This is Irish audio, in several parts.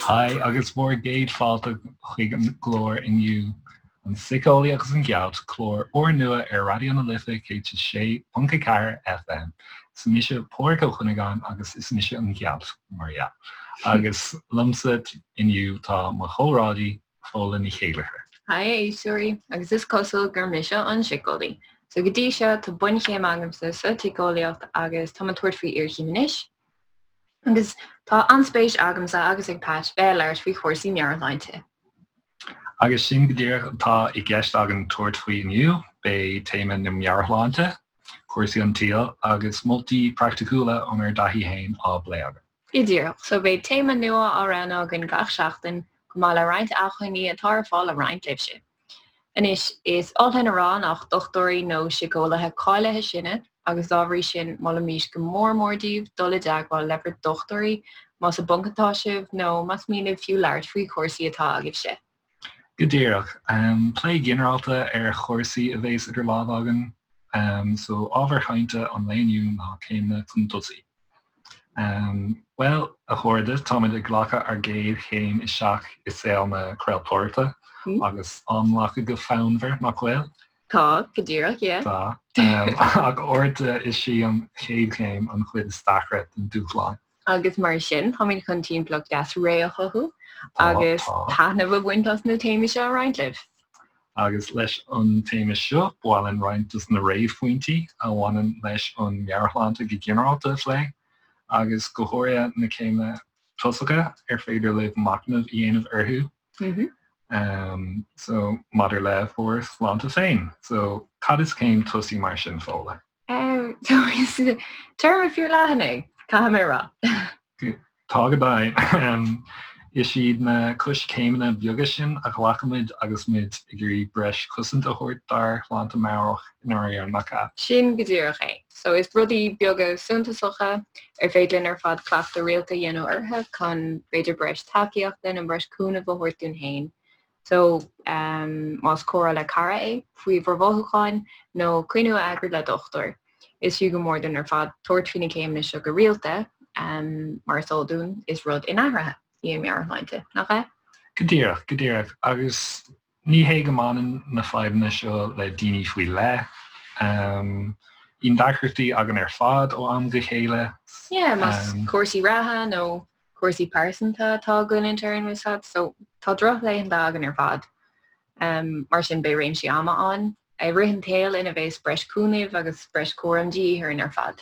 Haigh agus bhur gcéad fáilte chuig an gclár inniu, An Síceolaí agus an Ghealt, clár úrnua ar Raidió na Life 106.4 FM. Is mise Pádraig Ó Cuinneagáin agus is mise an Ghealt, mar dhea. Agus liomsa inniu tá mo chomrádaí, Fódhla Ní Chéilleachair. Haigh a éisteoirí, agus is cosúil gur mise an síceolaí. So go dtí seo tá bunchéim agamsa sa tsíceolaíocht agus táim ag tabhairt faoi iarchéim anois. Agus tá an-spéis agamsa agus ag Pat bheith ag labhairt faoi chúrsaí meabhairshláinte. Agus sin go díreach atá i gceist againn tabhairt faoi inniu, beidh téama na meabhairshláinte, cúrsaí an tsaoil agus moltaí praiticiúla ónár dtaithí féin á bplé againn. Go díreach. So beidh téama nua á roghnú againn gach seachtain, chomh maith le roinnt acmhainní atá ar fáil le roinnt libhse. Anois, is oth linn a rá nach dochtúirí nó síceolaithe cáilithe sinne agus dá bhrí sin molaimís go mór mór daoibh dul i dteagmháil le bhur dochtúirí más i bponc atá sibh nó más mian libh fiú labhairt faoi chúrsaí atá agaibhse. Go díreach. Plé ginearálta ar chúrsaí a bhéas idir lámha againn. So ábhar chainte an lae inniu ná céimeanna chun tosaigh. Bhuel, a chairde, táimid ag glacadh ár gcéad chéim isteach i saol na craoltóireachta agus á nglacadh go fonnmhar, nach bhfuil? Tá, go díreach, yeah. Tá. Ach uaireanta is í an chéad chéim an chuid is deacra den dúshlán. Agus mar sin, táimid chun timpeallacht deas réidh a chothú agus taitneamh a bhaint as na téamaí seo a roinnt libh. Agus leis an téama seo, ba mhaith linn roinnt dos na réamhphointí a bhaineann leis an meabhairshláinte go ginearálta a phlé, agus go háirithe na céimeanna tosacha ar féidir libh machnamh a dhéanamh orthu. So, maidir le bhur sláinte féin. So, cad is céim tosaigh mar sin, Fódhla? So, is téarma fíor leathan é, caithfidh mé a rá. Tá go deimhin. Is iad na coiscéimeanna beaga sin a ghlacaimid agus muid ag iarraidh breis cosanta a thabhairt dár shláinte meabhrach i ndáiríre, nach ea? Sin go díreach é. So is rudaí beaga suntasacha ar féidir linn ar fad cleachtadh rialta a dhéanamh orthu chun b'fhéidir breis tacaíochta nó breis cúnaimh a thabhairt dúinn féin. So, más comhrá le cara é faoi bhur mhothúcháin nó coinne a eagrú le dochtúir, is fiú go mór dúinn ar fad tabhairt faoi na céimeanna seo go rialta, mar is eol dúinn, is rud inathraithe í an meabhairshláinte, nach ea? Go díreach, go díreach. Agus ní hé go mbaineann na fadhbanna seo le daoine faoi leith. Bíonn deacrachtaí againn ar fad ó am go chéile. Yeah, más cúrsaí reatha nó cúrsaí pearsanta atá ag goilliúint orainn bhfuil a fhios agat, so tá drochlaethanta againn ar fad. Mar sin beidh réimsí ama ann i rith an tsaoil ina bheas breis cúnaimh agus breis cúraim de dhíth orainn ar fad.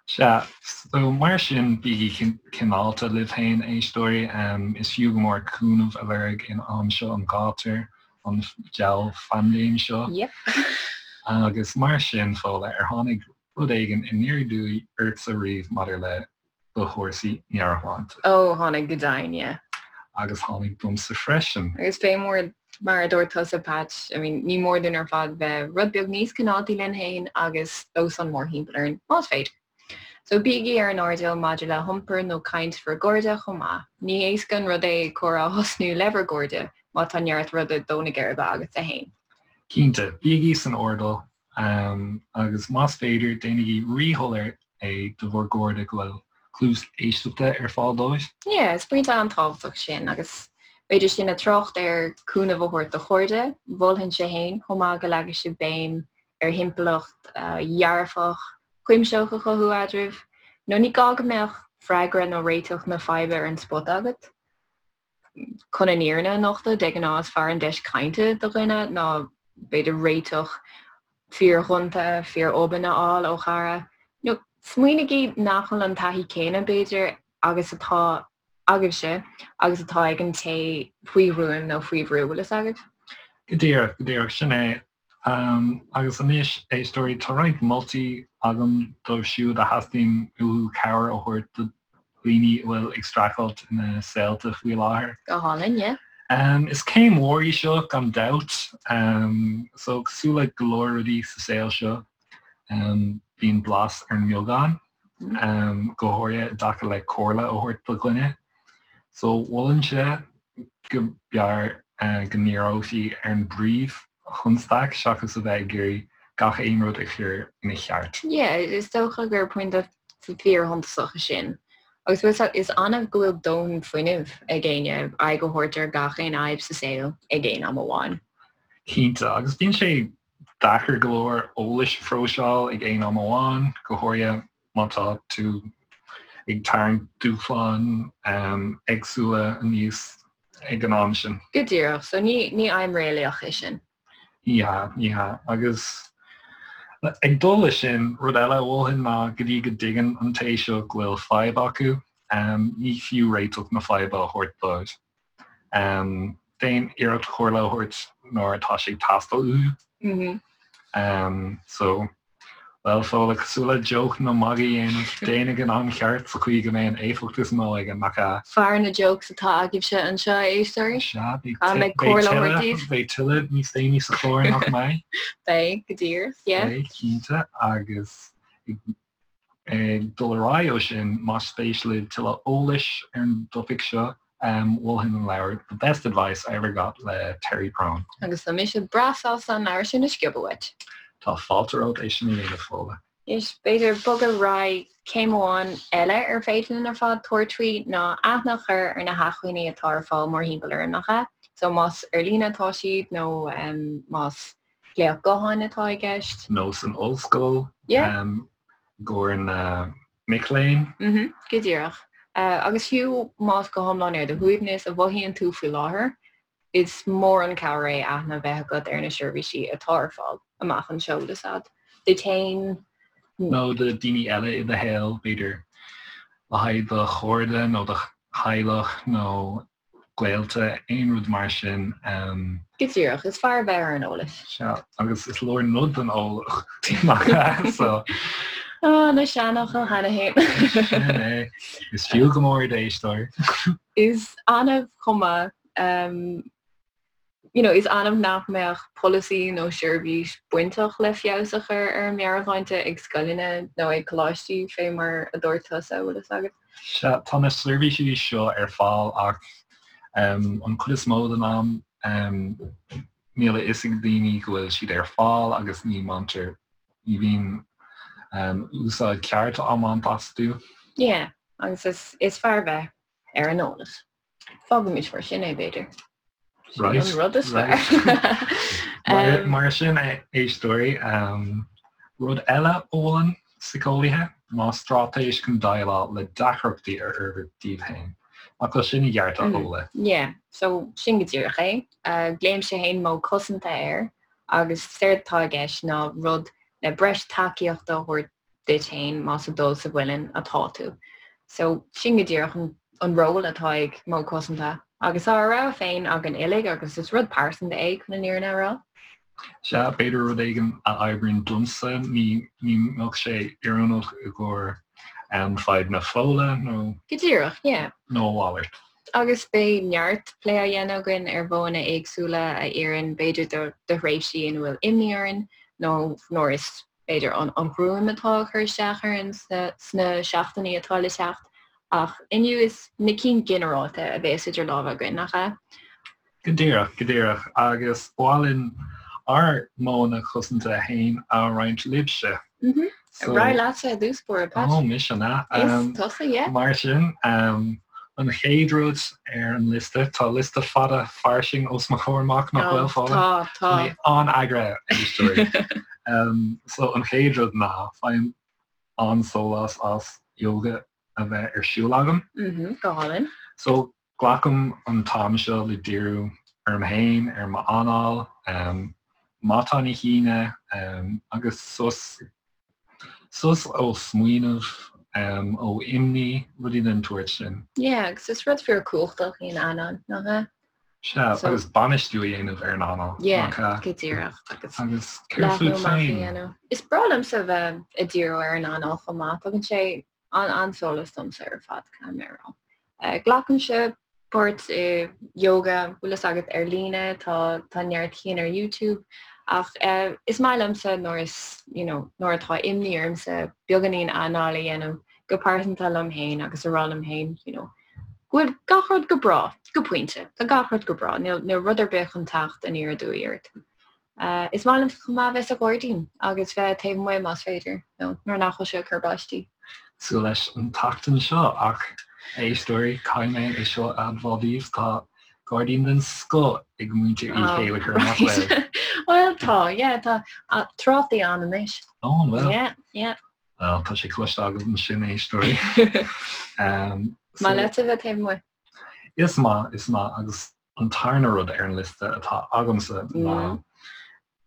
Sea, so mar sin bígí cineálta libh féin, a éisteoirí. Is fiú go mór cúnamh a lorg in am seo an ghátair, an diabhal phaindéim seo. Yep. Agus mar sin, Fódhla, ar tháinig rud éigin aniar aduaidh ortsa riamh maidir le do chúrsaí meabhairshláinte. Ó, tháinig go deimhin, yeah. Agus tháinig domsa freisin. Agus fé mar, mar a dúirt tusa, Patch, I mean, ní mór dúinn ar fad bheith rud beag níos cineáltaí linn féin agus dósan mórthimpeall orainn, más féidir. So bígí ar an airdeall maidir le hiompar nó caint bhur gcairde chomh maith. Ní héasca an rud é comhrá a thosnú le bhur gcairde má tá neart rud ag dó na geirbe agatsa féin. Cinnte, bígí san airdeall Agus más féidir, déanaigí ríshoiléir é do bhur gcairde go bhfuil cluas éisteachta ar fáil dóibh. Yeah, is pointe an-tábhachtach sin agus b'fhéidir sinn ag trácht ar cúnamh a thabhairt do chairde, mholfainnse féin chomh maith go leagfaidh sibh béim ar thimpeallacht dhearfach, chuimsitheach a chothú eadraibh. Nó ní gá go mbeadh freagra nó réiteach na faidhbe ar an spota agat. Chun an fhírinne a nochtadh, de ghnáth is fearr an deis cainte do dhuine ná b'fhéidir réiteach fíor-ghonta, fíor-obann a fháil ó chara. Nó smaoinigí nach bhfuil an taithí céanna, b'fhéidir, agus atá agaibhse agus atá ag an té faoi ghruaim nó faoi bhrú, bhfuil fhios agaibh? Go díreach, go díreach, sin é. Agus anois, éisteoirí, tá roinnt moltaí agam dóibh siúd a theastaíonn uathu cabhair a thabhairt do dhaoine a bhfuil ag streachailt ina saolta faoi láthair. Go hálainn, yeah. Is céim mhór í seo, gan dabht. So, cosúil le go leor rudaí sa saol seo, bíonn blas ar an mbeagán, go háirithe i dtaca le comhairle a thabhairt do dhuine. So, mholfainnse go mb'fhearr go ndíreofaí ar an bpríomhchonstaic seachas a bheith ag iarraidh. gach aon rud a chur ina cheart. Yeah, is dócha gur pointe fíorshuntasach é sin. Agus bhfuil fhios is annamh go bhfuil dóthain fuinnimh ag éinne aghaidh a thabhairt ar gach aon fhadhb sa saol ag aon am amháin. Cinnte, agus bíonn sé deacair go leor eolais a phróiseáil ag aon am amháin, go háirithe má tá tú ag tarraingt dúshláin éagsúla aníos ag an am sin. Go díreach, so ní ní aidhm réalaíoch é sin. Ní hea, ní hea. Agus ag dul leis sin, rud eile a mholfainn ná go dtí go dtuigeann an té seo go bhfuil fadhb acu, ní fiú réiteach na faidhbe a thabhairt dóibh. Déan iarracht comhairle a thabhairt nuair atá sé ag teastáil uathu. So, bhuel, Fódhla, cosúil le joke nó magadh a dhéanamh, déan ag an am cheart sa chaoi go mbeidh an éifeacht is mó aige, nach ea? Fear na jokes atá agaibhse anseo, a éisteoirí. Sea, beidh tuilleadh, beidh tuilleadh níos déanaí sa chlár, nach mbeidh? Beidh, go díreach, yeah. Beidh, cinnte, agus Ag dul ar aghaidh ó sin, más spéis libh tuilleadh eolais ar an dtopaic seo, mholfainn an leabhar The Best Advice I Ever Got le Terry Prone. Agus tá mise breá sásta an leabhar sin a sciobadh uait. Tá fáilte romhat é sin a dhéanamh, Fódhla. Anois, b'fhéidir bogadh ar aghaidh céim amháin eile ar féidir linn ar fad tabhairt faoi ná aithne a chur ar na hacmhainní atá ar fáil mórthimpeall orainn, nach ea? So más ar líne atá siad nó más glaoch gutháin atá i gceist. Nó san ollscoil i gcomhair na mic léinn. Go díreach. Agus fiú más go hiomlán ar do shuaimhneas a mhothaíonn tú faoi láthair, is mór an cabhair é aithne a bheith agat ar na seirbhísí atá ar fáil amach anseo, bhfuil fhios a'd, duit féin. Nó do daoine eile i do shaol, b'fhéidir, le haghaidh do chairde nó do theaghlach nó gaolta, aon rud mar sin. Go díreach, is fearr a bheith ar an eolas. Sea, agus is leor nod den eolaí, nach ea? So. Ah, na seanfhocail cheana féin. Sin é. Is fiú go mór iad, a éisteoir. Is annamh chomh maith. You know, is annamh nach mbeadh polasaí nó seirbhís bainteach le feabhas a chur ar an meabhairshláinte ag scoileanna nó ag coláistí, fé mar a dúirt tusa, bhfuil fhios agat. Sea, tá na seirbhísí seo ar fáil ach an chuid is mó den am níl a fhios ag daoine go bhfuil siad ar fáil agus ní mbaintear, ní bhíonn úsáid ceart á mbaint astu. Yeah, agus is fearr bheith ar an eolas. Fágaimis mar sin é, b'fhéidir. Right. An rud is fearr. Mar sin, a éisteoirí, rud eile a mholann síceolaithe ná straitéis chun déileáil le deacrachtaí a fhorbairt daoibh féin. Nach bhfuil sin i gceart, a Fhódhla? Yeah, so sin go díreach é. Glaoimse féin modh cosanta air agus séard atá i gceist ná rud le breis tacaíochta a thabhairt duit féin más ag dul sa mhuileann atá tú. So sin go díreach an ról atá ag modh cosanta. Agus tá ár rogha féin againn uilig agus is rud pearsanta é chun an fhírinne a rá. Sea, b'fhéidir rud éigin a oibríonn domsa, ní mbeadh sé oiriúnach i gcomhair fadhbanna Fódhla nó. Go díreach, yeah. Nó a mhalairt. Agus beidh neart plé á dhéanamh againn ar mhodhanna éagsúla a oireann b'fhéidir do thréimhsí ina bhfuil imní orainn nó nuair is b'fhéidir, an ghruaim atá ag cur isteach orainn sna seachtainí atá le teacht, ach inniu is na cinn ginearálta a bhéas idir lámha againn, nach ea? Go díreach, go díreach. Agus ba mhaith linn ár modhanna cosanta féin a roinnt libhse. Ar aghaidh leatsa i dtús báire, Pat. Ó, mise an ea? Is tusa, yeah. Mar sin, an chéad rud ar an liosta, tá liosta fada fairsing os mo chomhair amach, nach bhfuil, Fódhla? Tá, tá. Tá mé an-eagraithe, a éisteoirí. So, an chéad rud ná, faighim an-sólás as yoga a bheith ar siúl agam. Go hálainn. So, glacaim an t-am seo le díriú orm féin, ar m'anáil, matán a shíneadh agus sos, sos ó smaoineamh, ó imní, rudaí den tsórt sin. Yeah, agus is rud fíor cumhachtach í an anáil, nach ea? Sea, agus bainistiú a dhéanamh ar an anáil, nach ea? Yeah, go díreach. Agus Agus céard fút féin? Is breá liomsa bheith ag díriú ar an anáil chomh maith, tugann sé an-sólas domsa ar fad, caithfidh mé a rá. Glacaimse páirt i yoga, bhfuil fhios agat, ar líne, tá tá neart cinn ar YouTube, ach is maith liomsa nuair is, you know, nuair atá imní ormsa beagáinín anáil a dhéanamh go pearsanta liom féin agus a rá liom féin, you know, go bhfuil gach rud go breá, go pointe, tá gach rud go breá, níl níl rud ar bith chun teacht aniar aduaidh ort. Is maith liom chomh maith bheith sa ghairdín agus bheith taobh amuigh más féidir, nó nuair nach bhfuil sé ag cur báistí. Cosúil leis an tseachtain seo ach, a éisteoirí, caithfidh mé é seo a admháil daoibh, tá gairdín den scoth ag muintir Uí Chéilleachair, nach bhfuil? Bhuel, tá, yeah, tá trátaí ann anois. Ó, an bhfuil? Yeah, yeah. Bhuel, tá sé cloiste agaibh ansin, a éisteoirí. Maith leat a bheith taobh amuigh? Is maith, is maith, agus An tarna rud ar an liosta atá agamsa ná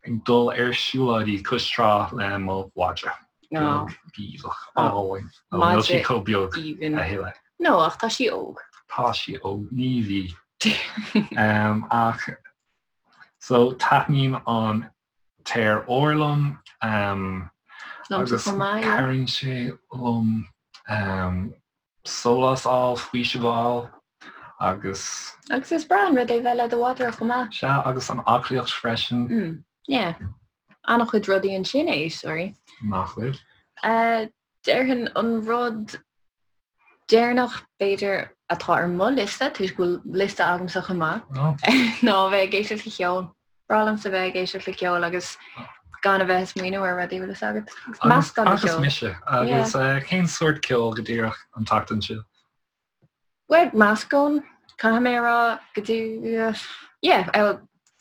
ag dul ar siúlóidí cois trá le mo mhadra beag gíomhach álainn. Níl sí chomh beag a thuilleadh. No, ach tá sí óg. Tá sí óg, ní bhí. Ach so taitníonn an t-aer úr liom agus cabhraíonn sé liom sólás a fháil, faoiseamh a fháil agus. Agus is breá an rud é bheith le do mhadra chomh maith. Sea, agus an aclaíocht freisin. Mm, yeah. An-chuid rudaí ansin, a éisteoirí. Nach bhfuil? Déarfainn an rud deireanach, b'fhéidir, atá ar mo liosta, toisc go bhfuil liosta agamsa chomh maith, ná a bheith ag éisteacht le ceol. Breá liomsa bheith ag éisteacht le ceol agus gan a bheith ag smaoineamh ar rudaí, bhfuil fhios agat. Meascán de cheol. Agus mise. Agus cén sórt ceoil go díreach an tseachtain seo? Bhuel, meascán, caithfidh mé a rá, go dtí, yeah,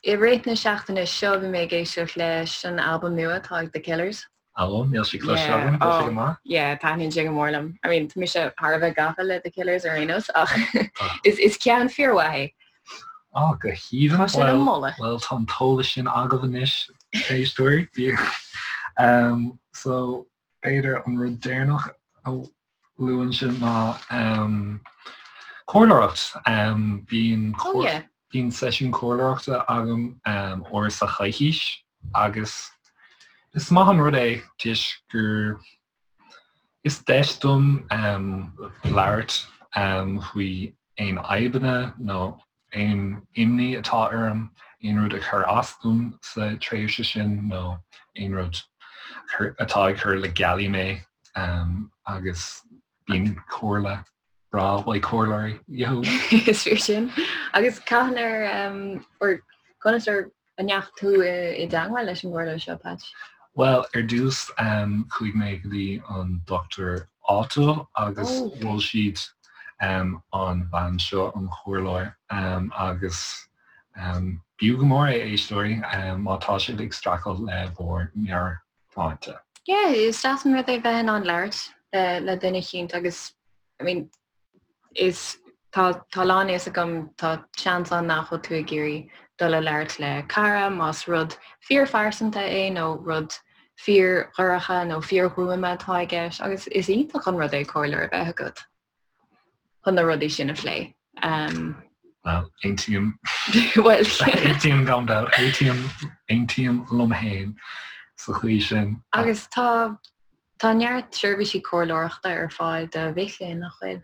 i rith na seachtaine seo bhí mé ag éisteacht leis an albam nua atá ag The Killers. Ó, níl sé cloiste agam, tá sé go maith? Yeah, taitníonn sé go mór liom. I mean, tá mise thar a bheith gafa le The Killers ar aon nós ach is ceann fíormhaith é. Á, go haoibhinn. Tá sé le moladh. Bhuel, tá an t-eolas sin agaibh anois, éisteoirí. So, b'fhéidir an rud deireanach a luafainnse ná comhairleoireacht. Bíonn bíonn seisiún comhairleoireachta agam uair sa choicís agus is maith an rud é toisc gur is deis dom labhairt faoi aon fhadhbanna nó aon imní atá orm, aon rud a chuir as dom sa tréimhse sin nó aon rud atá ag cur le gealaí mé agus bíonn comhairle breá uaidh comhairleoirí. Is fíor sin. Agus cathain ar, or conas ar An ndeachaigh tú i dteagmháil leis an gcomhairleoir seo, Patch? Bhuel, ar dtús chuaigh mé go dtí an dochtúir áitiúil agus mhol siad an bhean seo, an chomhairleoir, agus b'fhiú go mór é, a éisteoirí, má tá sibh ag streachailt le bhur meabhairshláinte. Yeah, is deas an rud é bheith in ann labhairt le duine eicínt agus, I mean, is tá tá a lán fhios agam tá seans ann nach bhfuil tú ag iarraidh dul a labhairt le cara más rud fíorphearsanta é nó rud fíordhorcha nó fíorghruama atá i gceist agus is iontach an rud é comhairleoir a bheith agat chun na rudaí sin a phlé. Um, Well, aontaím Well, aontaím gan dabht, aontaím aontaím liom féin sa chaoi sin. Agus tá Tá neart seirbhísí comhairleoireachta ar fáil do mhic léinn, nach bhfuil?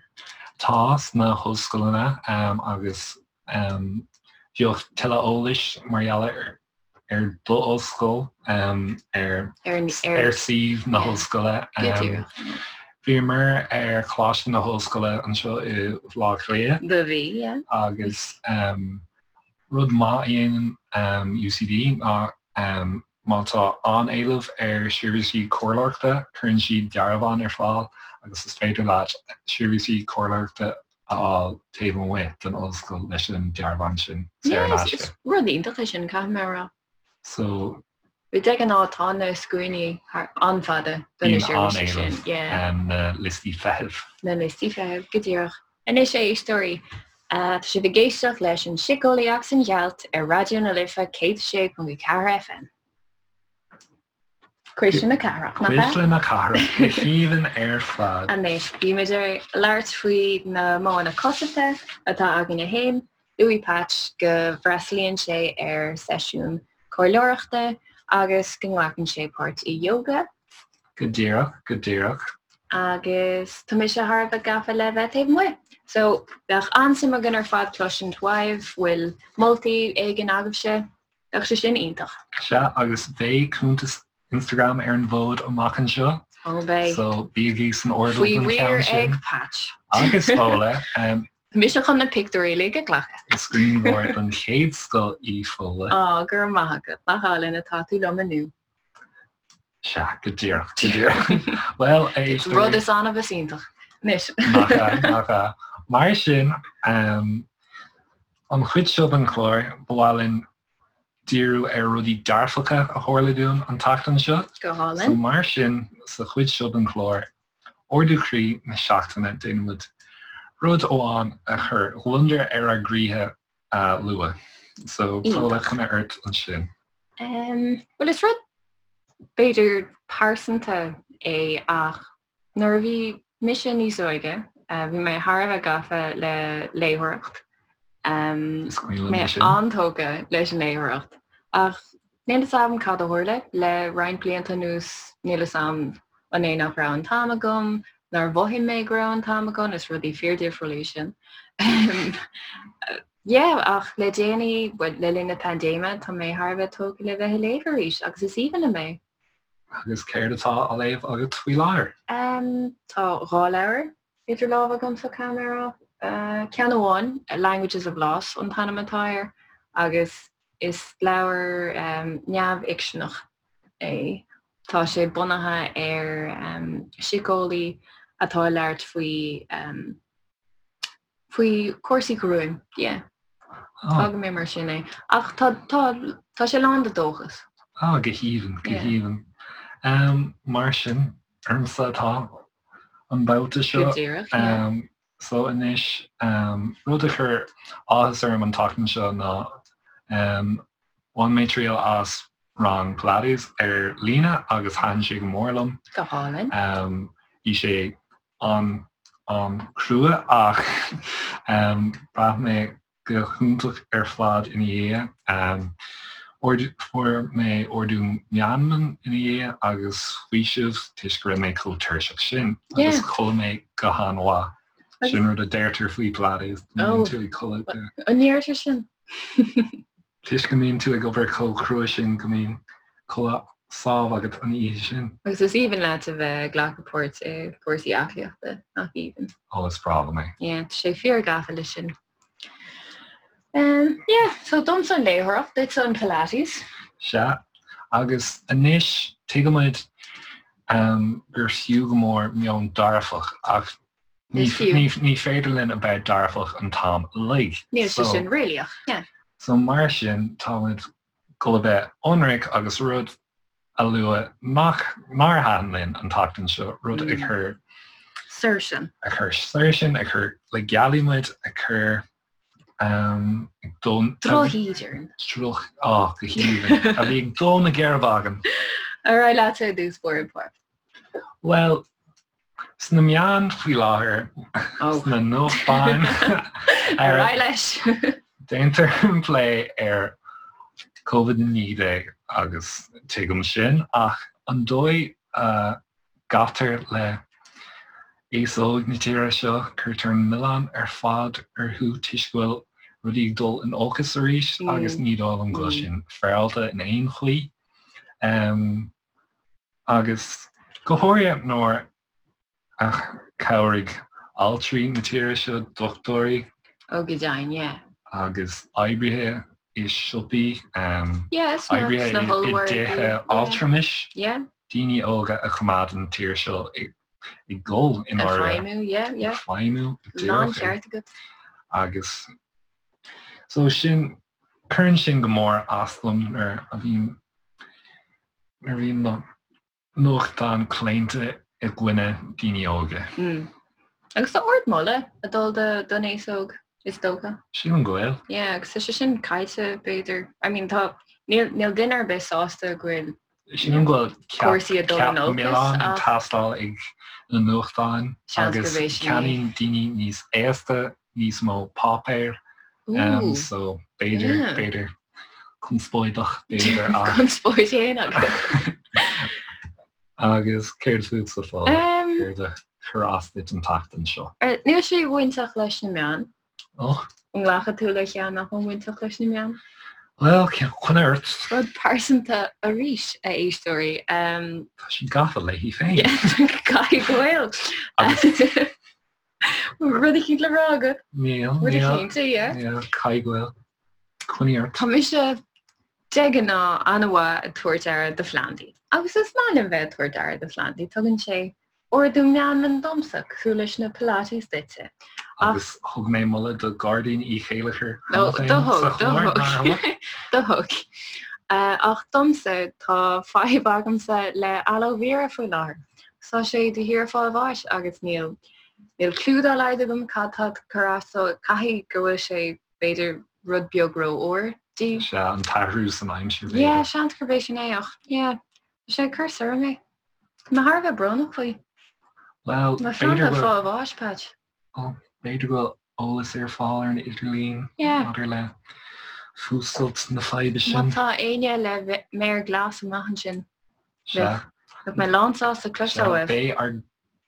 Tá, sna hollscoileanna agus bheadh tuilleadh eolais mar gheall ar d'ollscoil ar ar suíomh na hollscoile. Bhíomar ar Choláiste na hOllscoile anseo i Bhaile Átha Cliath. Do bhí, yeah. Agus rud maith a dhéanann UCD ná Má tá an-éileamh ar sheirbhísí comhairleoireachta, cuireann siad dearbhán ar fáil agus is féidir leat seirbhísí comhairleoireachta a fháil taobh amuigh den ollscoil leis an dearbhán sin, saor in aisce. Is rud iontach é sin, caithfidh mé a rá. So. De ghnáth tá na scuainí an-fhada do na seirbhísí sin. Bíonn an-éileamh, na liostaí feithimh. Na liostaí feithimh, go díreach. Anois, a éisteoirí, tá sibh ag éisteacht leis an Síceolaí agus an Ghealt ar Raidió na Life 106.4 FM. Cuisle na Cathrach, nach ea? Cuisle na Cathrach, go haoibhinn ar fad. Anois, bímid ag labhairt faoi na modhanna cosanta atá againne féin. Luaigh Patch go bhfreastalaíonn sé ar seisiún comhairleoireachta agus go nglacann sé páirt i yoga. Go díreach, go díreach. Agus tá mise thar a bheith gafa le bheith taobh amuigh. So, bheadh an-suim againn ar fad cloisint uaibh, bhfuil moltaí éigin agaibhse? Bheadh sé sin iontach. Sea, agus beidh cuntas Instagram ar an bhfód amach anseo. Ó, beidh. So, bígí san airdeall don cheann sin. Faoi riar ag Patch. Agus Fódhla. Mise chun na pictiúirí uilig a ghlacadh. Is grianghrafadóir den chéad scoth í Fódhla. Á, go raibh maith agat, nach álainn atá tú liom inniu. Sea, go díreach, go díreach. Bhuel, a éisteoirí. Rud is annamh is iontach. Anois. Nach ea, nach ea. Mar sin, an chuid seo den chlár, ba mhaith linn díriú ar rudaí dearfacha a tharla dúinn an tseachtain seo. Go hálainn. So mar sin, sa chuid seo den chlár, Ardú Croí na Seachtaine, déanaimid rud amháin a chuir gliondar ar ár gcroíthe a lua. So, Fódhla, coinne ort ansin. Bhuel, is rud b'fhéidir pearsanta é ach nuair a bhí mise níos óige, bhí mé thar a bheith gafa le léitheoireacht. Is cuimhin liom Mé é sin. an-tógtha leis an léitheoireacht ach Níl fhios a'm cad a tharla le roinnt blianta anuas, níl fhios a'm an é nach raibh an t-am agam, nár mhothaigh mé go raibh an t-am agam, is rudaí fíordhifriúla iad sin. Yeah, ach le déanaí, bhuel, le linn na paindéime, tá mé thar a bheith tógtha le bheith ag léamh arís agus is aoibhinn liom é. Agus céard atá á léamh agat faoi láthair? Tá 2 leabhar idir lámha agamsa, caithfidh mé a rá. Ceann amháin, Languages of Loss an t-ainm atá air, agus Is leabhar neamhfhicseanach é. Tá sé bunaithe ar síceolaí atá ag labhairt faoi faoi chúrsaí gruaim. Yeah. Fágfaidh mé mar sin é. Ach tá tá tá sé lán de dóchas. Ah, go haoibhinn, go haoibhinn. Mar sin, ormsa atá an babhta seo. Go díreach, yeah. So anois, rud a chuir áthas orm an tseachtain seo ná bhain mé triail as rang Pilates ar líne agus thaitin sé go mór liom. Go hálainn. Bhí sé an-an-chrua ach bhraith mé go hiontach ar fad ina dhiaidh. Fuair mé ardú meanman ina dhiaidh agus faoiseamh toisc go raibh mé chomh tuirseach sin agus chodlaigh mé go han-mhaith. Sin rud a deirtear faoi Pilates, go mbíonn tú ag codladh go. An ndeirtear sin? Toisc go mbíonn tú ag obair chomh crua sin go mbíonn codladh sámh agat an oíche sin. Agus is aoibhinn leat a bheith ag glacadh páirt i gcúrsaí aclaíochta, nach aoibhinn? Ó, is breá liom é. Yeah, tá sé fíor gafa leis sin. Um, yeah, so domsa an léitheoireacht, duitse an Pilates. Sea, agus anois tuigimid um, gur fiú go mór meon dearfach ach Ní féidir linn a bheith dearfach an t-am uilig. Níl sé sin réalaíoch, yeah. So mar sin, táimid ag dul a bheith ionraic agus rud a lua nach nár thaitin linn an tseachtain seo, rud a chuir soir sinn. A chuir soir sinn, a chuir le gealaigh muid, a chuir ag dó Drochíde orainn. Droch, á, go haoibhinn. A bhí ag dó na geirbe againn. Ar aghaidh leat ar dtús báire, Pádraig. Bhuel, Sna meáin faoi láthair, sna nuachtáin, Ar aghaidh leis! déantar plé ar Covid-19 agus tuigim sin, ach an dóigh a gcaitear le aos óg na tíre seo, cuirtear an milleán ar fad orthu toisc go bhfuil rudaí ag dul in olcas arís agus ní dóigh liom go bhfuil sin féaráilte in aon chaoi. Agus go háirithe nuair a chabhraigh altraí na tíre seo, dochtúirí. Ó go deimhin, yeah. Agus oibrithe i siopaí, Yeah, oibrithe sna i hollmhargaí, dtithe yeah. altramais, Yeah. daoine óga a choimeád an tír seo ag dul i Ag ndáiríre. feidhmiú, yeah, yeah. Ag feidhmiú, go díreach. Lán ceart agat. Agus so sin, cuireann sin go mór as dom nuair a bhíonn Nuair a bhíonn na nuachtáin claonta i gcoinne daoine óga. Agus tá ardmholadh ag dul don aos óg, is dócha. Sílim go bhfuil. Yeah, agus tá sé sin caillte, b'fhéidir. I mean, tá, níl, níl duine ar bith sásta go bhfuil Sílim go bhfuil ceap, cúrsaí ag dul ceap in olcas milleáin ag ach teastáil ag na nuachtáin seans agus gurb é sin é. ceannaíonn daoine níos aosta níos mó páipéir. Ooh. So b'fhéidir, Yeah. b'fhéidir conspóideach, b'fhéidir ach. Conspóid féin agat. Agus céard fútsa Fódhla? Um, Céard a chuir as duit an tseachtain seo? Níl sé bainteach leis na meáin. Och. An nglacfaidh tú le ceann nach bhfuil bainteach leis na meáin? Bhuel, coinnigh ort. Rud pearsanta arís, a éisteoirí. Um, Tá sí gafa léi féin. Caithfidh go bhfuil. Agus. Rud eicínt le rá agat? Níl, Rud níl. eicínt, yeah. Níl, caithfidh go bhfuil. Coinnigh ort. Tá mise de ghnáth an-mhaith ag tabhairt aire do phlandaí. Agus is maith liom bheith ag tabhairt aire do phlandaí. Tugann sé ardú meanman domsa, cosúil leis na Pilates duitse. Ach Agus thug mé moladh do Ghairdín Uí Chéilleachair No, cheana féin do thug, sa do chlár, thug. nár thug? Do thug. Ach domsa, tá fadhb agamsa le aloe vera faoi láthair. Tá sé de shíor ag fáil bháis agus níl níl cliú dá laghad agam cad tá ag cur as dó. Caithfidh go bhfuil sé b'fhéidir rud beag ró-fhuar di. Sea, an t-athrú san aimsir b'fhéidir. Yeah, seans gurb é sin é ach yeah, tá sé ag cur soir mé. Tá mé thar a bheith brónach faoi. Bhuel, Mo b'fhéidir phlanda go ag fáil bháis, Patch. Ó, b'fhéidir go bhfuil eolas ar fáil ar an idirlíon Yeah. maidir le fuascailt na faidhbe Má sin. tá éinne le méar glas amach ansin, Sea. bheadh mé lán sásta cloisteáil Sea, uaibh. beidh ár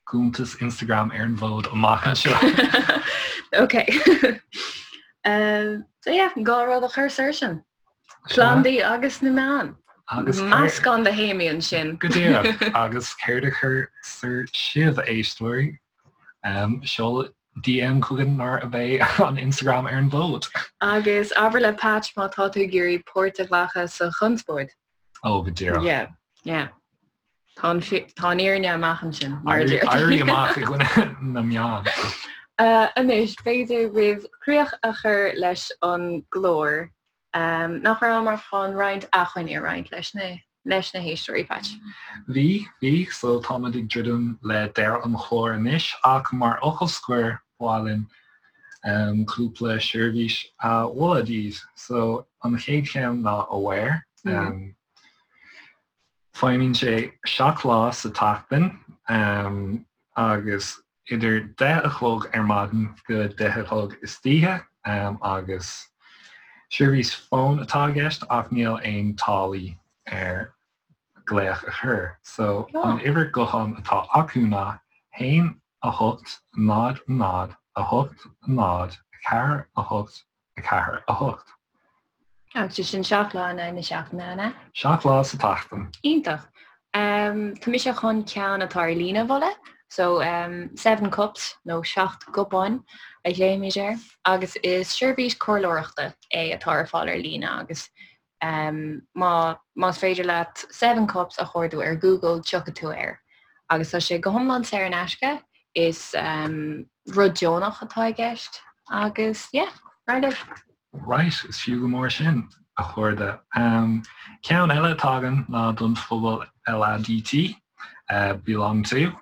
gcuntas Instagram ar an bhfód amach anseo. Ok. So yeah, gá rud a chur soir sin. Sea. Plandaí agus na meáin. Agus céard. Meascán de théamaí ansin. Go díreach. Agus céard a chuir soir sibh, a éisteoirí? Seol DM chugainn nuair a bheidh an Instagram ar an bhfód. Agus abair le Patch má tá tú ag iarraidh páirt a ghlacadh sa chonspóid. Ó, go díreach. Yeah, yeah. Tá an tá an fhírinne amach ansin, mar a Éirí deirtear. éirí amach i gcoinne na meán. Anois, b'fhéidir roimh chríoch a chur leis an gclár, Nach rabhamar chun roinnt acmhainní a roinnt leis na leis na héisteoirí, Patch? Bhí, bhí. So táimid ag druidim le deireadh an chláir anois ach mar fhocal scoir ba mhaith linn cúpla seirbhís a mholadh daoibh. So an chéad cheann ná Aware. Feidhmíonn sé 7 lá sa tseachtain agus idir 10 a chlog ar maidin go 10 a chlog istoíche agus seirbhís fóin atá i gceist ach níl aon táillí ar glaoch a chur. So an uimhir gutháin atá acu ná 1 8 0 0 8 0 4 8 4, 8. Agus sin 7 lá in aghaidh na seachtaine, an ea? 7 lá sa tseachtain. Iontach. Tá mise chun ceann atá ar líne a mholadh. So, Seven Cups, nó Seacht gCupán a ghlaoimid air, agus is seirbhís comhairleoireachta é atá ar fáil ar líne agus má más féidir leat Seven Cups a chuardú ar Google tiocfaidh tú air. Agus tá sé go hiomlán saor in aisce, is rud deonach atá i gceist agus yeah, right libh. Right, is fiú go mór sin, a chairde. Ceann eile atá againn ná don phobal LADT, Belong To.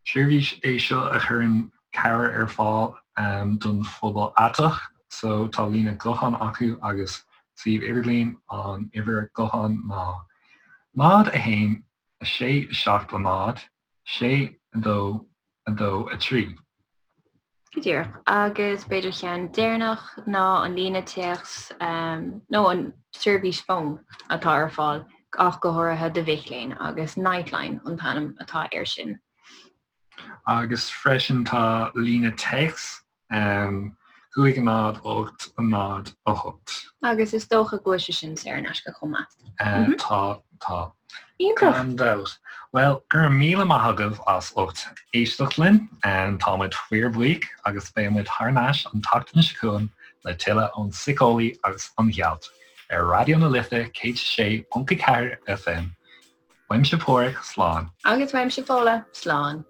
Seirbhís é seo a chuireann cabhair ar fáil don phobal aiteach. So tá líne gutháin acu agus suíomh idirlín, an uimhir gutháin ná 0 1 6 7 0 6 2 2 3. Go díreach. Agus b'fhéidir ceann deireanach ná an líne téacs nó an seirbhís fóin atá ar fáil ach go háirithe do mhic léinn agus Nightline an t-ainm atá air sin. Agus freisin tá líne téacs 5 0 8 0 8. Agus is dócha go bhfuil sé sin saor in aisce chomh maith. Tá, tá. Iontach! Gan dabht. Bhuel, go raibh míle maith agaibh as ucht éisteacht linn. Tá muid fíorbhuíoch agus beidh muid thar n-ais an tseachtain seo chugainn le tuilleadh ón Síceolaí agus an Ghealt ar Raidió na Life 106.4 FM. Uaimse Páraic, slán. Agus uaimse Fódhla, slán.